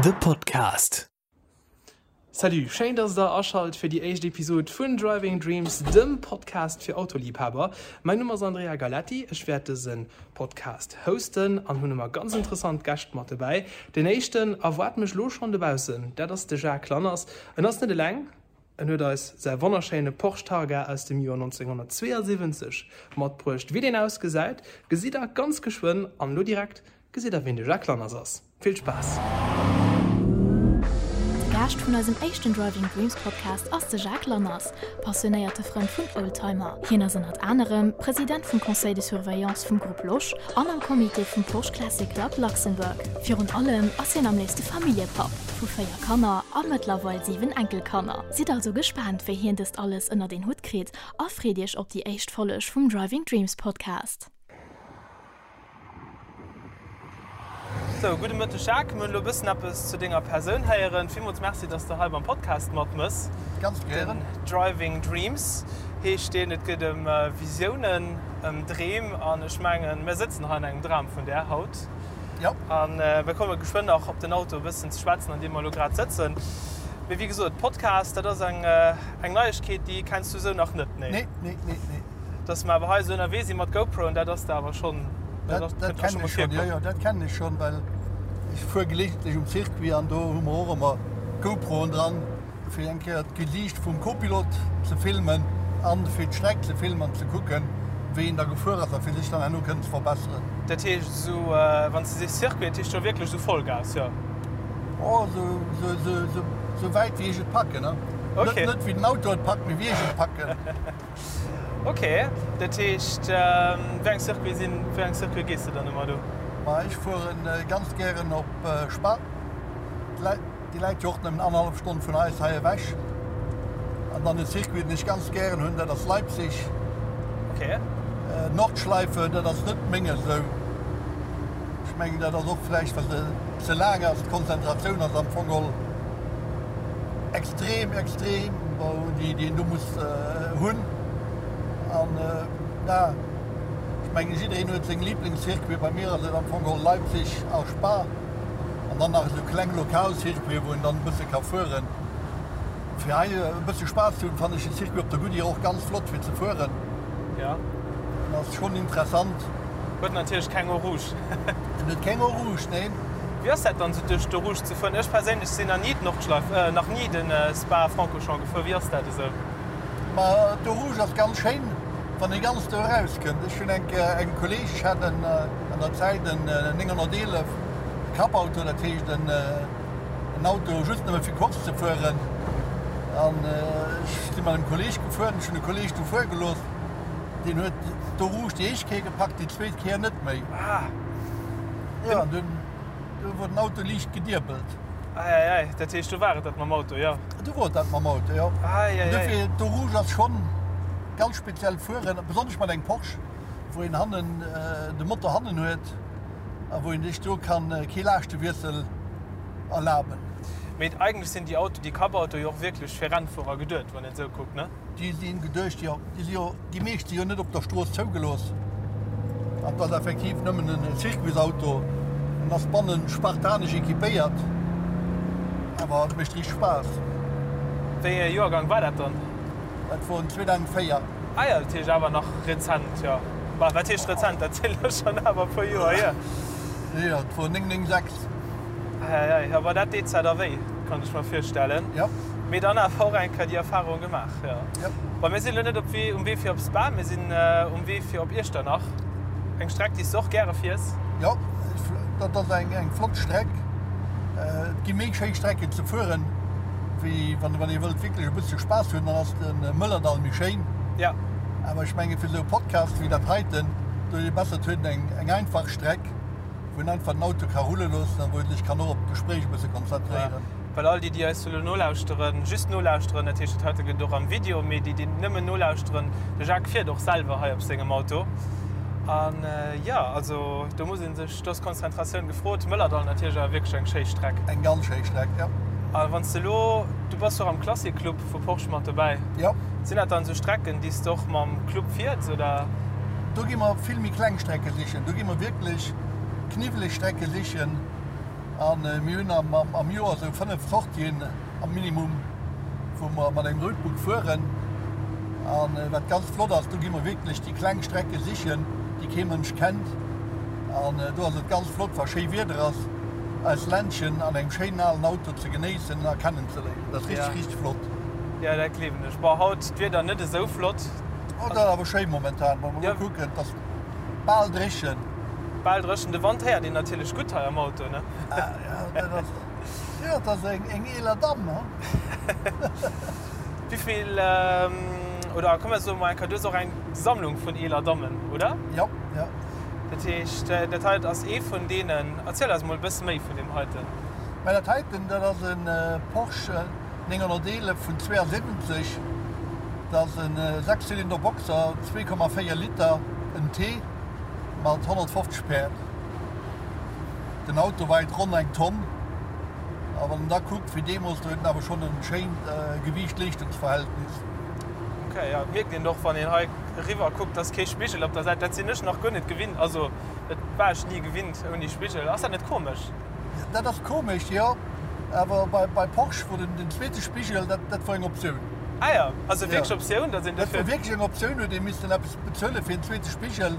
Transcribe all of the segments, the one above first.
De Podcast. Salut, schéin dass der aschalt fir déi éischt Episod vun Driving Dreams, dem Podcast fir Autoliebhaber. Mäin Numm ass Andrea Galetti, ech wäert dëse Podcast hosten an hunn ëmmer ganz interessant Gäscht mat dobäi. Den éischten erwaart mech lo schonn dobaussen, dat ass de Jacques Lanners. En ass net eleng, En huet eis säi wonnerschéine Porsche Targa aus dem Joer 1972 matbruecht. Wéi deen ausgesäit, gesitt der ganz geschwënn an elo direkt gesitt der ween de Jacques Lanners ass. Vill Spaass! De Gaascht vun eisem éischten Driving Dreams Podcast ass de Jacques Lanners, passionéierte Frënd vun Oldtimer. Hien ass ënnert anerem President vum Conseil de Surveillance vum Groupe Losch an am Comité vum Porsche Classic Club Luxembourg. Virun allem ass hien am léifste Familljepapp vu 4 Kanner a mëttlerweil 7 Enkelkanner. Sidd also gespaant wéi hien dëst alles ënnert een Hutt kritt a freet iech op déi éischt Folleg vum Driving Dreams Podcast. Sou, gudde Mëtteg Jacques. Mir hunn elo e bëssen eppes zu denger Persoun héieren. Villmools Merci, dass de hei beim Podcast matmëss. Ganz gären. Den Driving Dreams heescht deen. Et geet ëm Visiounen, ëm Dreem an ech mengen, mir sëtzen hei an engem Dram vun där haut. Jo. An mir komme geschwënn nach op den Auto e bëssen ze schwätzen, an deem mer elo grad sëtzen. Mee wéi gesot, Podcast, dat ass eng, eng Neiegkeet, déi kenns du esou nach net, nee? Nee, nee, nee, nee. Dass mer awer hei esou ënnerwee si mat GoProen, dat ass der awer schonn, dat ass, dat kënnt der scho mol virkomm. Jo, jo, dat kennen ech schonn, well ech fuer gelegentlech um Circuit an do hu mer och ëmmer GoProen dran. Fir eng Kéier d'Gesiicht vum Copilot ze filmen an fir d'Streck ze filmen an ze kucken, wéi een da gefuer ass a fir sech dann herno kënnen ze verbesseren. Dat heescht esou, wann s de sees Circuit, dat heescht jo wierklech esou Vollgas, jo? Oh, esou wäit wéi ech et packen, ne? Ok. Net wéi den Auto et packt, mee wéi ech et packen. Ok, dat heescht, wéi eng Circuite sinn, wéi eng Circuite gees de dann ëmmer do? Ma ech fueren ganz gären op Spa. Déi läit jo och nëmmen annerhallef Stonn vun eis hei ewech. An dann e Circuit, deen ech ganz gären hunn, dat ass Leipzig. Okay. Nordschleife, dat ass net menges esou. Ech mengen, dat ass och vläicht, well se ze laang ass. D'Konzentratioun ass am Fong geholl extrem, extrem, déi een do muss hunn. An ja, ech mengen, jiddereen huet seng Liblingscircuiten. Bei mir ass et am Fong geholl Leipzig a Spa. An dann nach esou kleng lokal Circuiten, wou een dann e bësse ka fueren. Fir hei e bësse Spaass ze hunn, fannen ech de Circuit op der Goodyear och ganz flott fir ze fueren. Ja. En ass schonn interessant. Huet natierlech keng Eau Rouge. En huet keng Eau Rouge, neen. Wéi ass dat dann esou duerch d'Eau Rouge ze fueren? Ech perséinlech sinn nach ni d'Nordschleif, nach ni de Spa-Francorchamps gefuer. Wéi ass dat esou? Ma d'Eau Rouge ass ganz schéin, wann ee ganz do erauskënnt. Ech hunn eng Kéier engem Kolleeg, ech hat en an der Zäit en 911, e Cup-Auto, dat heescht en Auto just nëmme fir Course ze fueren. An ech si mat engem Kolleeg gefuer, ech hunn de Kolleeg du fuere gelooss, deen huet d'Eau Rouge déi éischt Kéier gepackt, déi zweet Kéier net méi. Jo, an dunn du wor den Auto liicht gediebelt. Eieiei, dat heescht do war et dat mam Auto, jo? Do wor et dat mam Auto, jo. Eieiei. Dofir, d'Eau Rouge ass schonn ganz speziell fueren, besonnesch mat engem Porsche, wou een hannen de Motor hannen huet a wou een sech do kann kee Laaschtewiessel erlaben. Mee eigentlech sinn déi Auto, déi Cup-Autoe jo och wierklech fir Rennfuerer geduet, wann een esou kuckt, ne? Déi si geduecht, jo. Déi si jo, déi meescht si jo net op der Strooss zougelooss. An et ass effektiv nëmmen en Circuitsauto. En ass bannen spartanesch equipéiert, awer et mécht richteg Spaass. Wéi ee Joergang war dat dann? Dat wor en 2004. Ah jo, dat heescht awer nach rezent, jo. Bah, wat heescht rezent, dat sinn elo schonn awer e puer Joer hier. Jo, et wor 996. Eieiei, jo, bah, dat deet zwar da wéi, kann ech mer virstellen. Jo. Mee dann awer och eng Kéier déi Erfahrung gemaach, jo. Jo. Bah, mir sinn elo net op Wee, um Wee fir op Spa, mir sinn um Wee fir op Iechternach. Eng Streck, déi s de och gäre fiers. Jo, dat ass eng flott Streck. Et gi méi schéi Strecken ze fueren, wéi wann ee wëllt wierklech e bëssche Spaass hunn, dann ass de Mëllerdall méi schéin. Jo. Awer ech menge fir esou e Podcast wéi dat heiten, do huet ee besser, et huet een eng einfach Streck, wou een einfach den Auto ka rulle loossen a wou ee sech kann och op d'Gespréich e bësse konzentréieren. Well all déi, déi eis elo nolauschteren, just nolauschteren, dat heescht, dat heite gëtt och am Video, mee déi, déi nëmmen nolauschteren, de Jacques fiert och selwer hei op sengem Auto. An jo, also do muss ee sech, do ass Konzentratioun gefrot. Mëllerdall natierlech awer wierklech eng schéi Streck. Eng ganz schéi Streck, jo. A wann s de elo, du bass jo och am Classic Club vu Porsche mat dobäi. Jo. Sinn dat dann esou Strecken, déi s de och mam Club fiers, oder? Do gi mer vill méi kleng Strecke sichen. Do gi mer wierklech kniwweleg Strecke sichen. An mir hunn am Joer esou 5 Sortien am Minimum, wou mer mat engem Roadbook fueren. An wat ganz flott ass, do gi mer wierklech déi kleng Strecke sichen, déi kee Mënsch kennt. An do ass et ganz flott, wa schéi Wieder ass, eis Ländchen an engem schéinen alen Auto ze genéissen a kennenzeléieren. Dat ass richteg, richteg flott. Jo, dat gleewen ech. Bon, haut d'Wieder net esou flott. Oh, dat ass awer schéi momentan, wa mer elo kucken, et ass bal dréchen. Bal dréchen. De Wand héiert een natierlech gutt hei am Auto, ne? Ah, jo, dat ass, jo, dat ass eng eeler Damm, he? Wéivill, oder komm mer soe mol eng Kéier, du hues och eng Sammlung vun eeler Dammen, oder? Jo, jo. Dat heescht, dat hei ass ee vun deenen. Erziel eis mol e bësse méi vun deem heiten. Mä dat heiten, dat ass e Porsche 911 vun 72. Dat ass e Sechszylinder Boxer, 2,4 Liter, en T mat 150 Päerd. Den Auto weit ronn eng Tonn. A wann en da kuckt wéi deemools, do huet en awer schonn e schéint Gewiicht-Leeschtungsverhältnis. Ok, jo, et mierkt een och wann een hei eriwwer kuckt, dass kee Spigel op der Säit, dat sinn ech nach guer net gewinnt, also dat war ech ni gewinnt ouni Spigel. Ass dat net komesch? Dat ass komesch, jo, awer bei Porsche wor den zweete Spigel, dat dat wor eng Optioun. Ah jo, also wierklech Optioun, dass een dofir. Dat wor wierklech eng Optioun, huet ee missten eppes bezuele fir en zweete Spigel.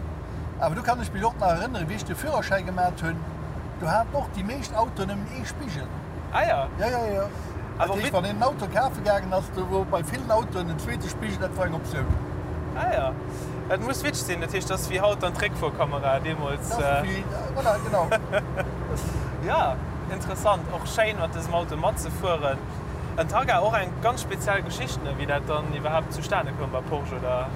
Awer do kann ech mech och nach erënneren, wéi ech de Führerschäi gemat hunn, do haten och déi meescht Autoen nëmmen ee Spigel. Ah jo. Jo, jo, jo. Dat heescht, wann een en Auto kafe gaangen ass, do wor bei villen Autoen en zweete Spigel, dat wor eng Optioun. Ah jo. Dat muss witzeg sinn. Dat heescht, dat ass wéi haut dann d'Réckfuerkamera deemools. Dat ass wéi, voilà, genau. Jo, interessant. Och schéin, mat dësem Auto matzefueren. En Targa, och eng ganz speziell Geschicht, ne, wéi dat dann iwwerhaapt zustane koum bei Porsche, oder?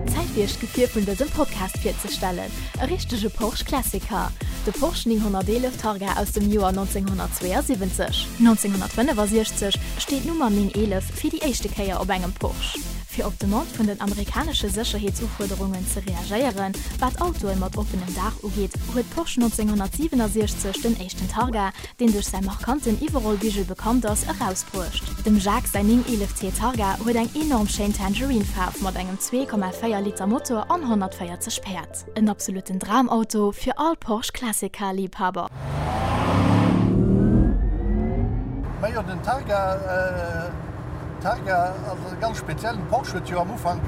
Zäit fir iech d'Gefier vun dësem Podcast virzestellen, e richtege Porsche Classic Car, de Porsche 911 Targa aus dem Joer 1972. 1965 steet d'Nummer 911 fir déi éischte Kéier op engem Porsche. Fir op d'Demande vun den amerikanesche Sécherheetsufuerderungen ze reagéieren, wat Autoe mat oppenem Daach ugeet, huet Porsche 1967 den éischten Targa, deen duerch säi markanten Iwwerrollbigel bekannt ass, erausbruecht. Dem Jacques säin 911 T Targa huet eng enorm schéin Tangerine-Faarf mat engem 2,4 Liter Motor an 140 Päerd. En absoluten Dramauto fir all Porsche Classic Car Liibhaber. Majo den Targa, Targa ass e ganz speziellen. Porsche huet jo am Ufank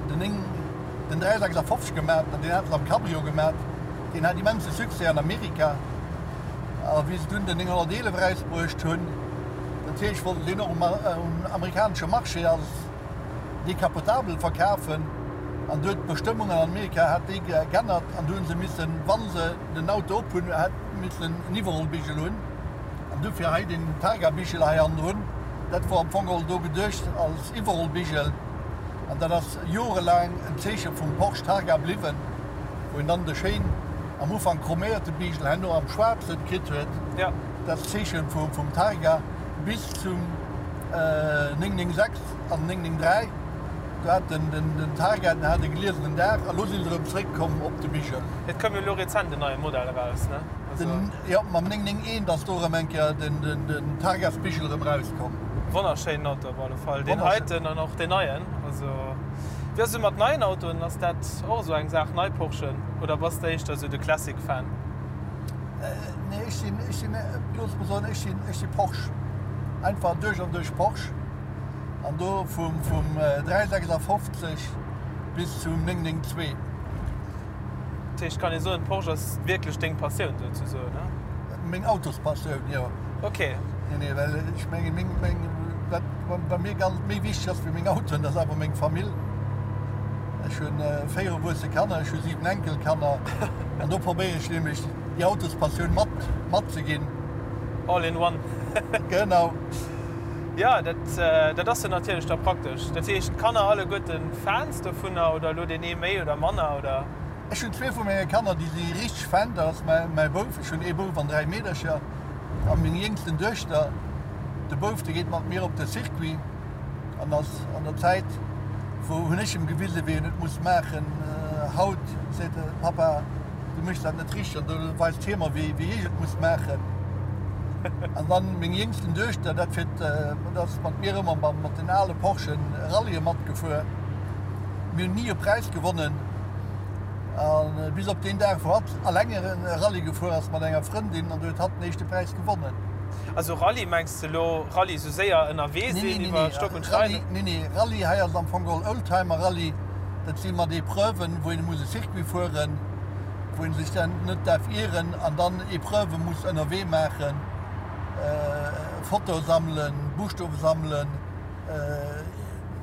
den 9, den 356 gemat an deen hat se am Cabrio gemat. Deen hat immense Succès an Amerika. A wéi se dunn den 911 erausbruecht hunn, natierlech wollten se deen och um amerikanesche Marché als decapotabel verkafen. An du huet d'Bestëmmungen an Amerika hat déi geännert an du hu se missen, wa se den Auto op hunn, hat missen en Iwwerrollbigel hunn. An dofir hei den Targa-Bigel hei hannendrun. Dat wor am Fong geholl do geduecht als Iwwerrollbigel. An dat ass jorelaang en Zeeche vum Porsche Targa bliwwen. Wou een dann de schéin am Ufank chroméierte Bigel herno am schwaarzen kritt huet, dat Zeechen vum Targa bis zum 996 an 993, do hat den Targa, den hat e gliesenen Daach a lo si se erëm zréck komm op de Bigel. Et koum jo elo rezent en neie Modell eraus, ne? Jo, mam 991 ass do erëm eng Kéier den Targasbigel erëm erauskomm. Wonnerschéinen Auto op alle Fall, deen heiten an och deen neien. Also wéi ass et mat neien Autoen, ass dat och esou eng Saach, nei Porschen, oder bass de éischter esou de Classic Fan? Nee, ech sinn, ech sinn, looss mer soen, ech sinn, ech si Porsche. Einfach duerch an duerch Porsche. An do vum, vum 356 bis zum 992. Dat heescht, kann ee soen, Porsche ass wierklech deng Passioun souzesoen, ne? Meng Autospassioun, jo. Ok. Nee, nee, well ech mengen, meng, meng, wat bei mir ganz méi wichteg ass wéi meng Autoen, dat ass awer meng Famill. Ech hunn 4 erwuesse Kanner, ech hu 7 Enkelkanner an do probéiere ech nämlech déi Autospassioun mat, matzeginn. All in one. Genau. Jo, dat, dat ass jo natierlech da praktesch. Dat heescht, d'Kanner alleguerten Fans dovunner oder elo deen ee méi oder manner, oder? Ech hunn zwee vu menge Kanner, déi si richteg Fan. Dat ass mäi Bouf, ech hunn ee Bouf an 3 Meedercher, a meng jéngsten Duechter. De Bouf, dee geet mat mir op de Circuit an ass an der Zäit, wou hunn ech em gewisen, wéi en et muss maachen. Haut seet e, Papa, du méchs dat net richteg. An do weist hie mer, wéi ech et muss maachen. An dann meng jéngsten Duechter, dat fiert, dat ass mat mir ëmmer mat den ale Porschen Rallye matgefuer. Mir hunn ni e Präis gewonnen. A bis op deen Dag, wou hatt alleng e Rallye gefuer ass mat enger Frëndin an do huet hatt den éischte Präis gewonnen. Also Rallye, mengs de elo Rallye sou séier ënnerwee sinn iwwer Stock und Stein? Nee, nee, Rallye hei ass am Fong geholl Oldtimer Rallye. Dat si mat Epreuven, wou een muss e Circuit fueren, wou een sech dann net däerf ieren an dann Epreuve muss ënnerwee maachen, Fotoe sammelen, Buschtowe sammelen.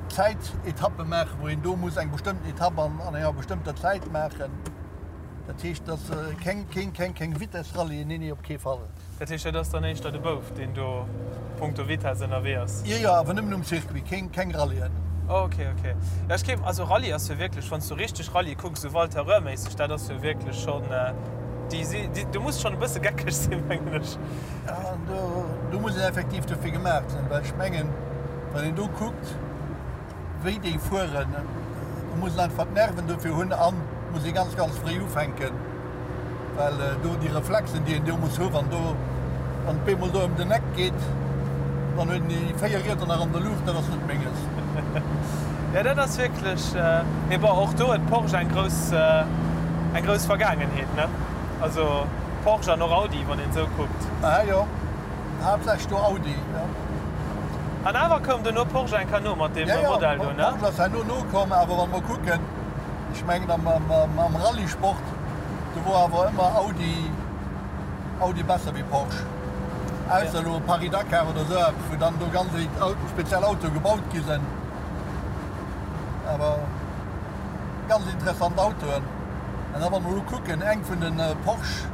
Zäitetappe maachen, wou een do muss eng bestëmmten Etapp an enger bestëmmter Zäit maachen. Dat heescht, dat ass keng, keng, keng, keng Vitessrallye, nee, nee, op kee Fall. Dat heescht, dat ass dann éischter de Bouf, deen do punkto Vitess ënnerwee ass? Jo, jo, awer nëmmen um Circuit, keng, keng Rallyen. Oh, ok, ok. Jo, ech géif, also Rallye ass jo wierklech, wann s du richteg Rallye kucks, esou Walter Röhr-méisseg, dat ass jo wierklech schonn, déi si, déi, do muss schonn e bësse geckeg sinn, mengen ech. Ja, do, do muss een effektiv dofir gemaach sinn, well ech mengen, wann een do kuckt, wéi déi fueren, do muss een einfach d'Nerven dofir hunn an muss ee ganz, ganz fréi ufänken, well do déi Reflexen, déi een do muss hu wann do, wann et bemol do ëm den Eck geet, dann huet een déi 4 Rieder nach an der Luucht, dat ass net menges. Jo, dat ass wierklech, mee bon, och do huet Porsche eng grouss, eng grouss Vergaangenheet, ne? Also Porsche an och Audi, wann een esou kuckt. Aha, jo. Haaptsächlech do Audi, jo. An awer koum duerno Porsche eng Kéier no mat deem Modell do, ne? Jo, jo, Porsche ass herno nokomm, awer wa mer kucken, ech mengen am Rallyesport, do wor awer ëmmer Audi, Audi besser wéi Porsche. Ausser elo Paris-Dakar oder esou eppes, wou dann do ganz speziell Autoe gebaut gi sinn. Awer. Ganz interessant Autoen. An da wa mer elo kucken, eng vun de Porsche,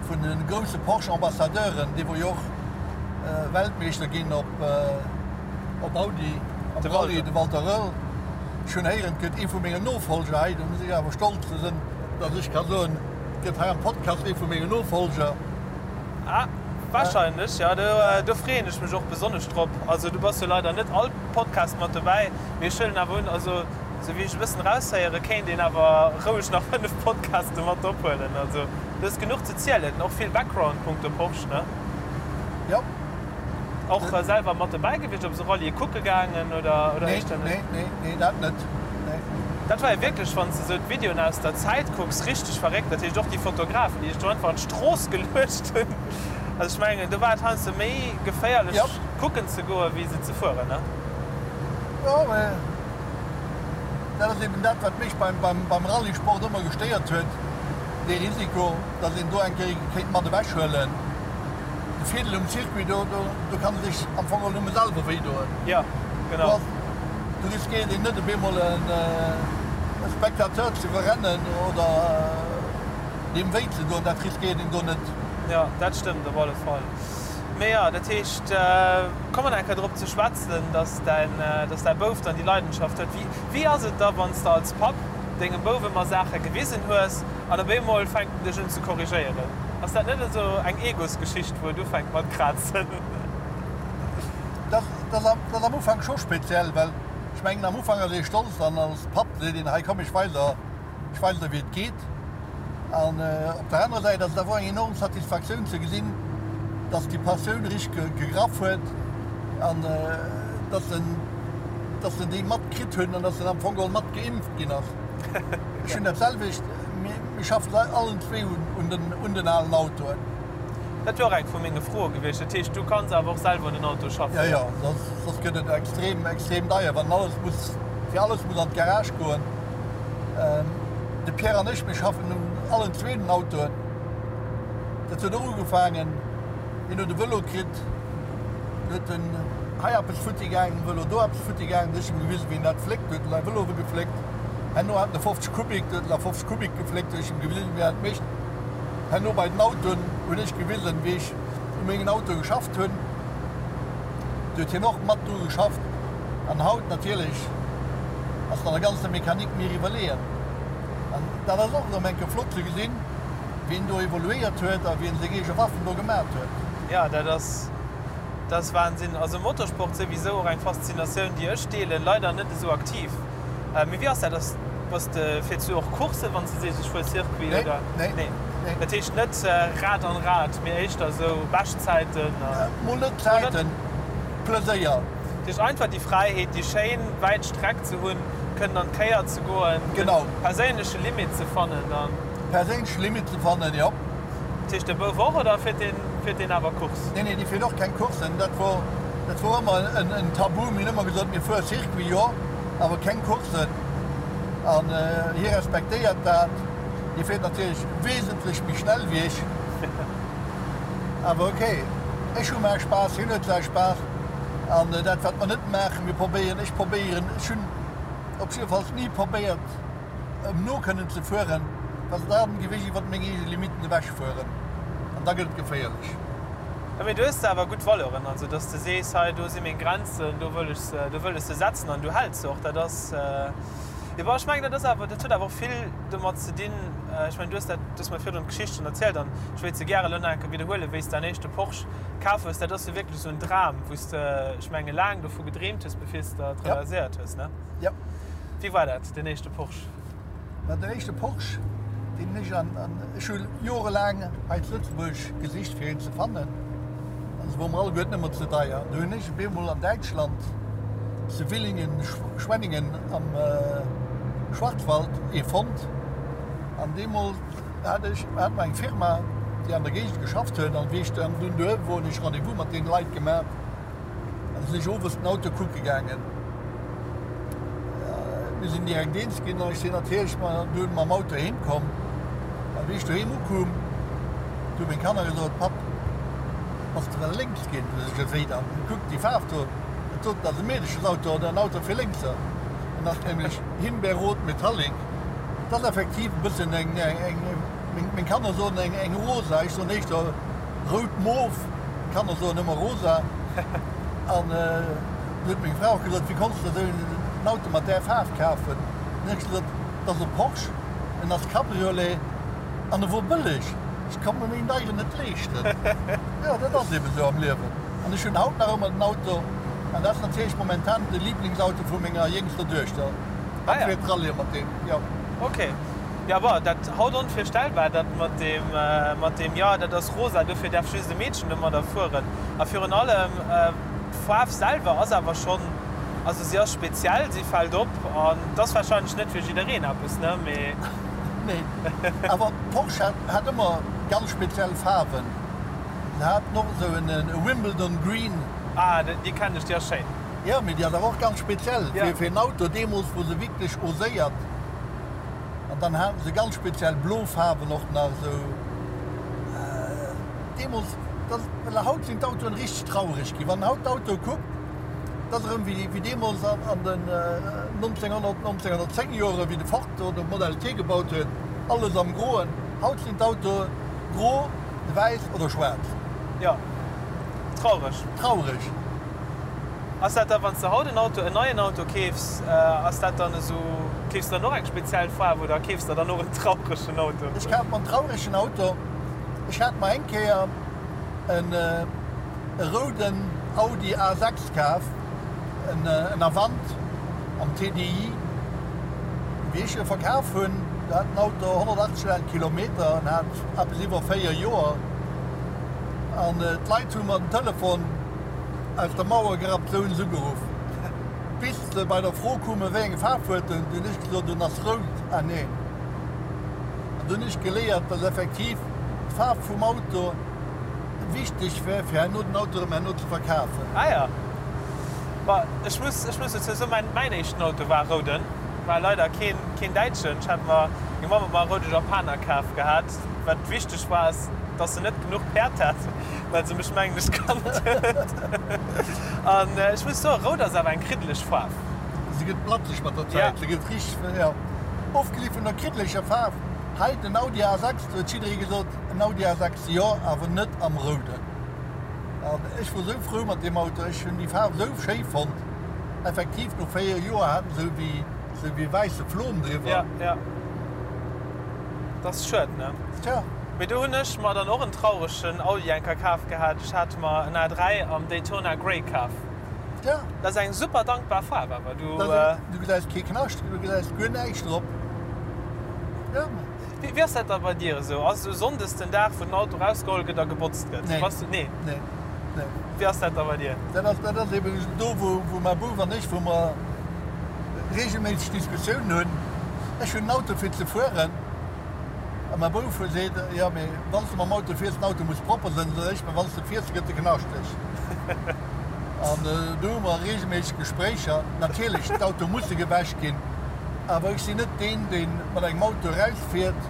vun de grousse Porsche Ambassadeuren, dee wor jo och Weltmeeschter ginn op op Audi am Rallye, de Walter Röhrl. Ech hunn héieren, et gëtt ee vu mengen Nofolger hei, do muss ech awer stolz sinn, datt ech ka soen, et gëtt hei am Podcast ee vu mengen Nofolger. Ah, wahrscheinlech, jo. Do freeën ech mech och besonnesch drop. Also du bass jo leider net all Podcast mat dobäi, mee ech huelen awer un, also Sou wéi ech e bëssen eraushéieren, kéint een awer roueg nach 5 Podcaste mat ophuelen. Also du hues genuch ze zielen, och vill Background punkto Porsche, ne? Jo. Och selwer mat dobäi gewiescht, op esou Rallye kucke gaangen oder oder éischter net? Nee, nee, nee, dat net, nee. Dat war jo wierklech, wann s de sou d'Videoen aus der Zäit kucks, richteg verréckt. Dat heescht och déi Fotografen, déi sech do einfach an d'Strooss geluecht hunn. Also ech mengen, do war et heiansdo méi geféierlech kucken ze goen, wéi se ze fueren, ne? Jo, mä Dat ass eben dat, wat mech beim Rallyesport ëmmer gestéiert huet, dee Risiko, datt een do eng Kéier kéint mat ewechhuelen. De Virdeel um Circuit, do kann ee sech am Fong och nëmme selwer wéidoen. Jo, genau. Do riskéiert een net, op eemol e Spectateur ze iwwerrennen oder deem wéi ze doen. Dat riskéiert een do net. Jo, dat stëmmt op alle Fall. Mee jo, dat heescht, komme mer nach eng Kéier drop ze schwätzen, dass däin, dass däi Bouf dann déi Leidenschaft huet. Wéi, wéi ass et da, wann s de als Papp dengem Bouf ëmmer Saache gewisen hues an op eemol fänkt en dech un ze korrigéieren? Ass dat net esou eng Egosgeschicht, wou et ufänkt mat krazen? Dat, dat ass am Ufank scho speziell, well ech mengen, am Ufank ass ee stolz an als Papp seet een, hei komm, ech weis der, Ech weis der wéi et geet. An op der anerer Säit ass et awer och eng enorm Satisfaktioun ze gesinn, dass déi Passioun richteg gegraff huet an dass en, dass en déi matkritt hunn an dass en am Fong geholl mat geimpft ginn ass. Ech hunn dat selwecht, mir schaffen allen zwee un den, un den alen Autoen. Dat wier och eng vu menge Froe gewiescht. Dat heescht, du kanns awer och selwer un den Auto schaffen? Jo, jo, soss, soss gëtt et extrem, extrem deier, wann alles muss, fir alles muss an d'Garage goen. De Pierre an ech, mir schaffen un allen zwee den Autoen. Dat huet och ugefaangen, hien huet e Vëlo kritt, du huet en hei eppes futti gaangen um Vëlo, do eppes futti gaangen, du huet ech em gewisen, wéi een dat fléckt, du huet en säi Vëlo gefléckt. Herno hat en e 50 Kubik, du huet en a 50 Kubik gefléckt, du huet ech em gewisen, wéi een dat mécht. Herno bei den Autoen hunn ech gewisen, wéi ech u mengen Autoe geschafft hunn, du huet hien och mat dru geschafft. An haut natierlech ass an der ganzer Mechanik mir iwwerleeën. An dat ass och erëm eng Kéier flott ze gesinn, wéi en do evoluéiert huet a wéi en seng eege Waffen do gemat huet. Jo, dat ass, dat ass Wahnsinn. Also Motorsport souwisou och eng Faszinatioun, déi ech deelen, leider net esou aktiv. Mee wéi ass dat, ass, bass de, fiers du och Courssen, wann s de sees, ech fuer Circuit, Nee, oder? nee, Nee. nee. Dat heescht net Rad an Rad, mee éischter esou Beschtzäiten a. Mol net Zäiten, Pleséier. Dat heescht einfach déi Fräiheet, déi schéin wäit Streck ze hunn, kënnen an d'Kéier ze goen, de perséinleche Limit ze fannen dann. Perséinleche Limit ze fannen, jo. Dat heescht de Bouf och oder fiert deen, fiert deen awer Course? Nee, nee, dee fiert och keng Coursen. Dat wor, dat wor ëmmer en Tabu. Mir hunn ëmmer gesot, mir fuere Circuit, jo, awer keng Coursen. An hie respektéiert dat. Hie fiert natierlech wesentlech méi schnell wéi ech. Awer ok, ech hu mäi Spaass, hien huet säi Spaass. An dat wat mer net maachen, mir probéieren, ech probéieren, ech hunn op jiddefalls ni probéiert em no kënnen ze fueren, well da géif ech iwwert meng eege Limitten ewech fueren an da gëtt et geféierlech. Jo, mee du hues awer gutt Valeuren, also dass de sees, hei do si meng Grenzen, do wëll ech se, do wëll ech se setzen an du häls se och. Dat ass, jo bon, ech mengen dat ass awer, dat huet awer och vill domat ze dinn, ech mengen du hues dat, du hues mer virdrun d'Geschicht schonn erzielt an ech wéilt se gäre elo nach eng Kéier widderhuelen, wéi s däin éischte Porsche kaf hues, dat ass jo wierklech esou en Dram, wou s de, ech menge laang dovu gedreemt hues, bevir s de et realiséiert hues, ne? Jo. Wéi war dat, deen éischte Porsche? Ma den éischte Porsche, deen ech an, an ech hu jorelaang hei zu Lëtzebuerg gesicht fir een ze fannen, an se wor mer alleguerten ëmmer ze deier. An du hunn ech op eemol an Däitschland, zu Villingen-Schwenningen am Schwarzwald, ee fonnt. An deemools hat ech, hat mer eng Firma, déi an der Géigend geschafft huet, an wéi ech dann dunn doheem wor, hunn ech Rendez-vous mat deene Leit gemaach an sinn ech owes den Auto kucke gaangen. Mir sinn direkt eens ginn an ech sinn natierlech dunn mam Auto heem komm. An wéi ech doheem ukoum, du hu meng Kanner gesot, Papp, bass de well lénks ginn? Du sech, Wéi dann? Kuck déi Faarf do, dat doten ass e Meedeschesauto oder en Auto fir Lénkser. En ass nämlech Himbeerrot Metallic. Et ass effektiv e bëssen eng, eng, meng Kanner soen eng, eng rosa, ech soen éischter rout-mof, d'Kanner soen ëmmer rosa. An du huet meng Fra och gesot, wéi konns de esou en Auto mat där Faarf kafen? Dann hunn ech gesot, et ass e Porsche, en ass Cabriolet an e wor bëlleg, ech konnt mer méi en deieren net leeschten. Jo, dat ass eben esou am Liewen. An ech hunn haut nach ëmmer den Auto an dat ass natierlech momentan de Liblingsauto vu menger jéngster Duechter. Ah ja. Fir d'Rallye mat deem, jo. Ok. Jo, bon, dat haut onvirstellbar, dat mat deem, mat deem, jo, dat ass rosa, dofir däerf just e Meedchen domadder fueren. A virun allem, d'Faarf selwer ass awer schonn, also si ass speziell, si fält op an et ass warscheinlech net fir jiddereen eppes, ne, mee. Nee, awer Porsche hat, hat ëmmer ganz speziell Faarwen. Se haten och esou en Wimbledon Green. Ah, déi kennen ech, déi ass schéin. Jo, mee déi ass awer och ganz speziell fir en Auto. Deemools wor se wierklech oséiert. An dann haten se ganz speziell blo Faarwen och nach esou. Deemools, dat, well haut sinn d'Autoen richteg traureg ginn. Wann een haut d'Autoe kuckt, dat ass erëm wéi deemools an den 1900, 1910 Joren, wéi de Ford do de Model T gebaut huet, alles am Groen. Haut sinn d'Autoe gro, wäiss oder schwaarz. Jo, traureg. Traureg. Ass dat da wann s de haut en Auto, en neien Auto keefs, ass dat dann esou, keefs de dann och eng speziell Faarf oder keefs der dann och en trauregen Auto? Ech kaf mer en trauregen Auto. Ech hat mer eng Kéier en e rouden Audi A6 kaf, en en Avant am TDI. Wéi ech e verkaf hunn, do hat den Auto 180.000 Kilometer an hat eppes iwwer 4 Joer. An d'Leit hu mer den Telefon aus der Mauer gerappt, sou hunn se ugeruff. Bis se bei der Fro koumen, wéi eng Faarf huet en, du hunn ech gesot, en ass rout. Ah neen. An du hunn ech geléiert, dass effektiv d'Faarf vum Auto wichteg wär, fir herno den Auto erëm herno ze verkafen. Ah ja. Bah, ech muss, ech muss dozou soen, mäin, mäin éischten Auto war e rouden. War leider keen, keen däitschen. Ech hat mer, meng Mamm huet mer e roude Japaner kaf gehat. Wat wichteg war, ass, dass en net genuch Päerd hat, well se mech mengen ech kannt huet. An ech muss soen, rout ass awer eng kriddeleg Faarf. Se gëtt blatzeg mat der Zäit, se gëtt richteg, jo, ofgesi vun der kriddeleger Faarf. Hei den Audi A6, do huet jidderee gesot, en Audi A6 jo, awer net am rouden. An ech wor sou frou mat deem Auto, ech hunn déi Faarf sou schéi fonnt. Effektiv, no 4 Joer hat en sou wéi, sou wéi wäisse Flom driwwer. Ja, ja. Dat ass schued, ne? Tja. Mee do hunn ech mer dann och en trauregen Audi eng Kéier kaf gehat. Ech hat mer en A3 am Daytona Grey kaf. Tja. Dat ass eng super dankbar Faarf awer. Du. Du gesäis kee Knascht, du gesäis guer näischt drop. Ja. Wéi ass dat da bei dir esou? Ass esou Sonndes den Dag, wou den Auto rausgeholl gëtt a gebotzt gëtt? Nee. Bass du, nee? Nee. Nee. Wéi ass dat da bei dir? Dat ass, dat ass eben do, wou, wou mäi Bouf an ech, wou mer reegelméisseg Diskussiounen hunn. Ech hunn en Auto fir ze fueren a mäi Bouf seet, jo, mee wann s de mam Auto fiers, den Auto muss propper sinn. Soen ech, mä wann s de fiers, da gëtt e knaschteg. An do hu mer reegelméisseg Gespréicher. Natierlech, d'Auto musse gewäsch ginn, awer ech sinn net deen, dee mat engem Auto erausfiert,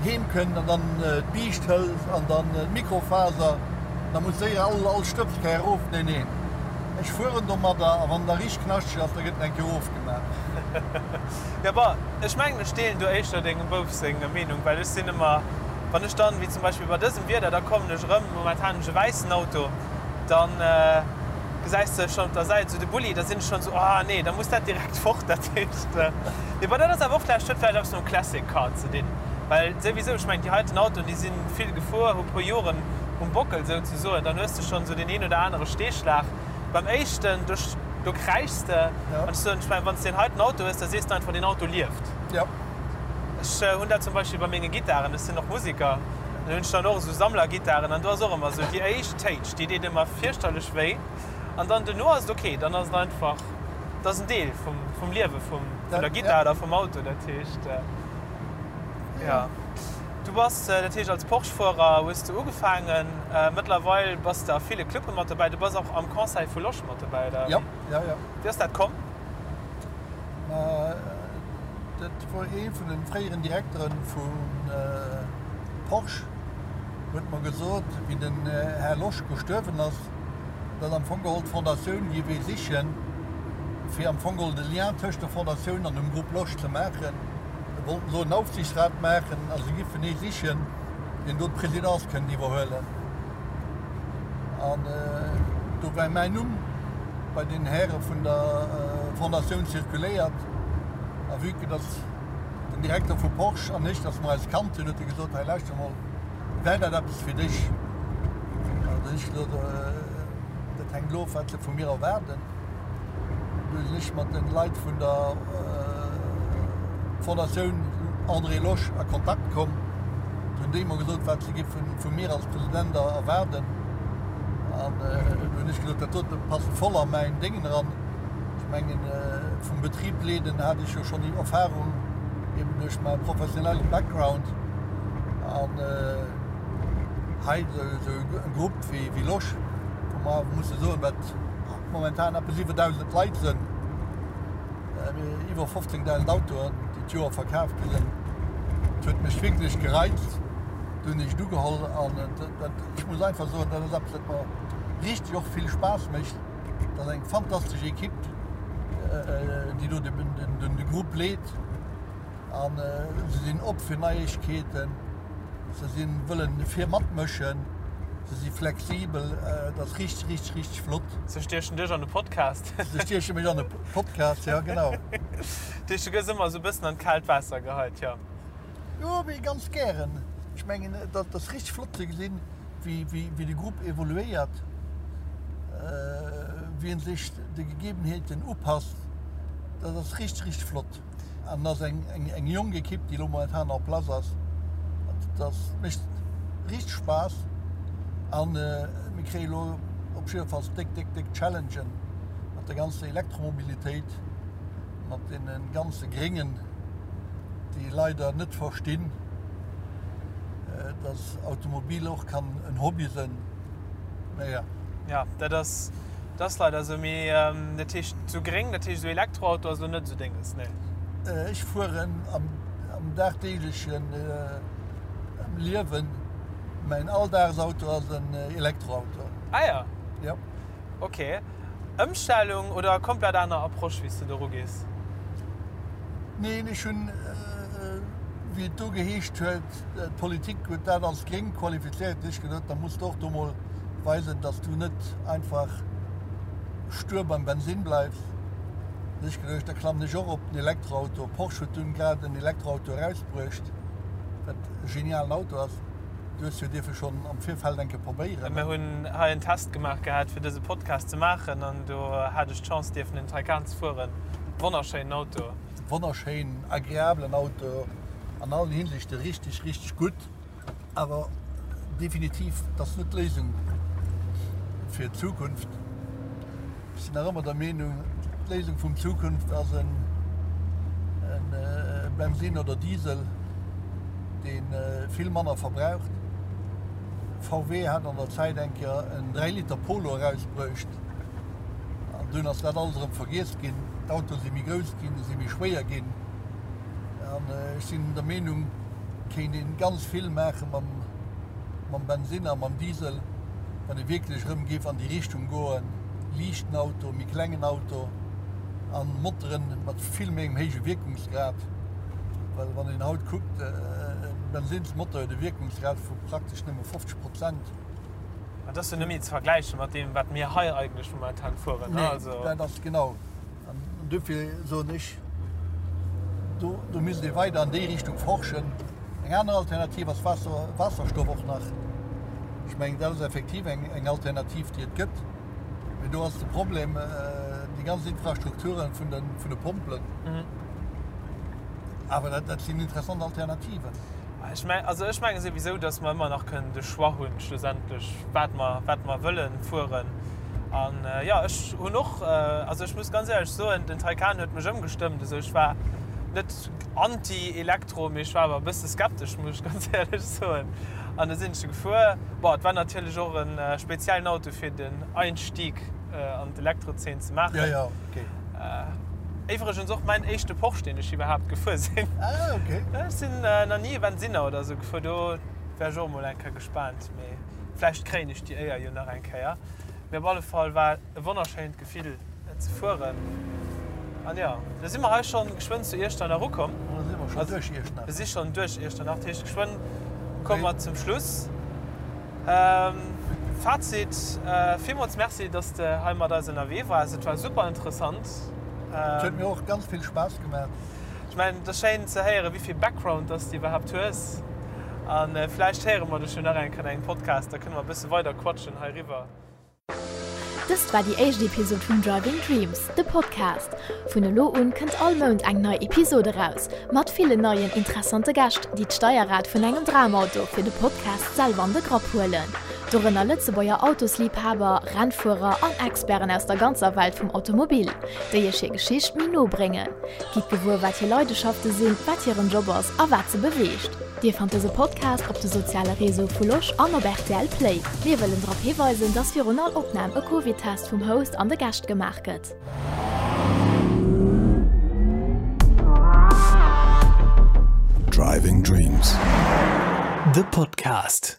heem kënnt an dann d'Biischt hëlt an dann d'Mikrofaser, da muss séier all all Stëbskär erof. Nee, nee, ech fueren domadder a wann da richteg knaschteg ass, da gëtt en eng Kéier erofgemaach. Jo, bon, ech mengen, ech deelen do éischter dengem Bouf seng Meenung, well ech sinn ëmmer, wann ech dann, wéi zum Beispill bei dësem Wieder, da kommen ech erëm, momentan hunn ech e wäissen Auto, dann gesäis de schonn op der Säit esou de Bulli, da sinn ech schonn esou, ah nee, da muss dat direkt fort. Dat heescht, mee bon, dat ass awer och vläicht, huet vläicht eppes mam Classic Car ze dinn, well souwisou, ech mengen, déi heiten Autoen, déi si vill gefuer, hu puer Joren um Bockel souzesoen, dann hues de schonn esou deen een oder anere Steeschlag. Beim éischten, do, do kräischs de. An ech soen, ech mengen, wann s de deen heiten Auto hues, da sees de einfach, deen Auto lieft. Ech hunn dat zum Beispill bei menge Gittaren, ech sinn och Musiker, dann hunn ech dann och esou Sammlergittaren an do ass och ëmmer esou déi éischt Téitsch, déi deet ëmmer fierchterlech wéi an dann duerno ass et ok, dann ass et einfach, dat ass en Deel vum, vum Liewe vum, vun der Gittar oder vum Auto. Dat heescht, jo. Du bass, dat heescht als Porsche-Fuerer hues de ugefaangen, mëttlerweil bass de a ville Clubbe mat dobäi, du bass och am Conseil vu Losch mat dobäi, oder? Jo, jo, jo. Wéi ass dat komm? Ma dat wor ee vun de fréieren Direkteren vu Porsche huet mer gesot, wéi den Här Losch gestuerwen ass, datt am Fong geholl d'Fondatioun géif ee sichen, fir am Fong geholl de Lien tëscht der Fondatioun an dem Groupe Losch ze maachen. Se wollten elo en Aufsichtsrat maachen a se giffen ee sichen, deen do d'Presidence kënnt iwwerhuelen. An do war mäin Numm bei den Häre vun der Fondatioun zirkuléiert. A vue que dass den Direkter vu Porsche an ech, dass mer eis kannt hunn, huet e gesot, Hei lauschter mol, wär dat eppes fir dech? An da hunn ech gesot, Dat hänkt elo of, wat se vu mir erwaarden. Du sinn ech mat den Leit vun der Fondatioun André Losch a Kontakt komm. Du hunn déi mer gesot, wat se giffen vu mir als President erwaarden. An du hunn ech gesot, dat dote passt voll a mäin Déngen eran. Ech mengen, vum Betrib leeden hat ech jo schonn déi Erfahrung, eben duerch mäi professionellen Background. An hei esou e Grupp wéi Losch, wou mer awer musse soen, wat momentan eppes iwwer 1.000 Leit sënn, iwwer 15.000 Autoen, déi d'Joer verkaf gi sënn. Et huet mech wierklech gereizt. Du hunn ech et ugeholl an dat, ech muss einfach soen, dat ass eppes, wat mer richteg och vill Spaass mécht. Dat ass eng fantastesch Ekipp, déi do de Grupp leet a se sinn op fir Neiegkeeten. Se si wëllen fir matmëschen, se si flexibel, et ass richteg, richteg, richteg flott. Se stiechen dech an de Podcast. Se stieche mech an de Podcast, jo genau. Dat heescht, du gëss ëmmer esou e bëssen an d'kaalt Waasser geheit, jo? Jo, mee ganz gären. Ech mengen, et ass richteg flott ze gesinn, wéi de Grupp evoluéiert, wéi en sech de Gegebenheeten upasst. Dat ass richteg, richteg flott. An ass eng eng jonk Ekipp, déi elo momentan en place ass. Dat mécht richteg Spaass. An mir kréie elo op jiddefalls déck, déck, déck Challengen mat der ganzer Elektromobilitéit, mat deene ganze Gréngen, déi leider net verstinn, dass Automobil och kann en Hobby sënn. Naja. Ja, dat ass, dat ass leider esou. Mee dat heescht esou gréng, dat heescht esou Elektroauto ass elo net esou denges, nee? Ech fueren am, am dagdeeglechen Liewen, mäin Alldagsauto ass en Elektroauto. Ah ja. Ja. Ok. Ëmstellung oder komplett aner Approche wéi s de do rugees? Neen, ech hunn, wéi et do geheescht huet, d'Politik huet dat als gréng qualifizéiert, hunn ech geduet, da muss de och do mol weisen, datt s du net einfach stur beim Bensinn bleifs. Hunn ech geduecht, da klammen ech och op den Elektroauto. Porsche huet dunn grad en Elektroauto erausbruecht, wat e genialen Auto ass. Du hues jo dierfe schonn am Virfeld eng Kéier probéieren. Mir hunn hei en Test gemaach gehat fir dëse Podcast ze maachen an do hat ech d'Chance dierfen en Taycan ze fueren. Wonnerschéinen Auto. Wonnerschéin, agreablen Auto, an allen Hinsichte richteg, richteg gutt. Awer definitiv, dat ass net d'Léisung. fir d'Zukunft. Ech sinn nach ëmmer der Meenung, d'Léisung vum Zukunft ass en Bensin oder Diesel, dee vill manner verbraucht. VW hat an der Zäit eng Kéier en 3 Liter Polo erausbruecht an dunn ass dat alles erëm vergiess ginn. D'Autoe si méi grouss ginn, si méi schwéier ginn an ech sinn der Meenung, kéint een ganz vill maache mam mam Bensin a mam Diesel, wann ee wierklech erëm géif an déi Richtung goen, liichten Auto, méi klengen Auto a Moteren mat vill méi engem héije Wierkungsgrad. Well wann een haut kuckt, e Bensinnsmotor huet e Wierkungsgrad vu praktesch nëmme 50 Prozent. Dat ass jo net méi ze vergläiche mat deem, wat mir hei eigentlech momentan fueren. Nee, dat ass genau. An dofir soen ech, do, do misst ee weider an déi Richtung forschen. Eng aner Alternativ ass Waasser, Waasserstoff och nach. Ech mengen, dat ass effektiv eng, eng Alternativ, déi et gëtt. Mee do ass de Problem déi ganz Infrastrukturen vun de, vun de Pompelen. Awer dat, dat sinn interessant Alternativen. Ech meng, also ech menge souwisou, datt mer ëmmer nach kënnen de Choix hunn, schlussendlech, wat mer, wat mer wëllen fueren. An jo, ech hunn och, also ech muss ganz éierlech soen, den Taycan huet mech ëmgestëmmt. Also ech war net anti-Elektro, mee ech war awer e bësse skeptesch, muss ech ganz éierlech soen. An da sinn ech e gefuer. Bon, et war natierlech och e speziellen Auto fir den Einstieg an d'Elektrozeen ze maachen. Jo, jo, okay. Iwwregens och mäin éischte Porsche, deen ech iwwerhaapt gefuer sinn. Ah, okay. Ech sinn nach ni e Bensinner oder esou gefuer, do wär ech och emol eng Kéier gespaant. Mee vläicht kréien ech déi Éier jo nach eng Kéier. Mee op alle Fall war e wonnerschéint Gefill et ze fueren. An jo, da si mer hei schonn geschwënn zu Iechternach ukomm. Da si mer schonn duerch Iechternach. Mir si schonn duerch Iechternach, dat heescht geschwënn komme mer zum Schluss. Fazit, Villmools Merci, dass de hei mat eis ënnerwee waars. Et war super interessant. Et huet mir och ganz vill Spaass gemaach. Ech mengen, et ass schéin ze héieren, wéi vill Background dass de iwwerhaapt hues. A vläicht héiere mer dech jo nach eng Kéier an engem Podcast, da kënne mer e bësse weider quatschen heiriwwer. Dëst war déi éischt Episod vun Driving Dreams, de Podcast. Vun elo un kënnt all Mount eng nei Episod eraus, mat villen neien interessante Gäscht, déi d'Steierrad vun engem Dramauto fir de Podcast selwer an de Grapp huelen. Dorënner Lëtzebuerger Autosliibhaber, Rennfuerer an Experten aus der ganzer Welt vum Automobil, déi iech hir Geschicht méi no bréngen. Gitt gewuer, wat hir Leideschafte sinn, wat hiren Job ass a wat se beweegt. Dir fannt dëse Podcast op de soziale Réseau vu Losch an op rtl Play. Mir wëllen drop hiweisen, dass virun all Opnam e Covid-Test vum Host an de Gäscht gemaach gëtt. Driving Dreams, de Podcast.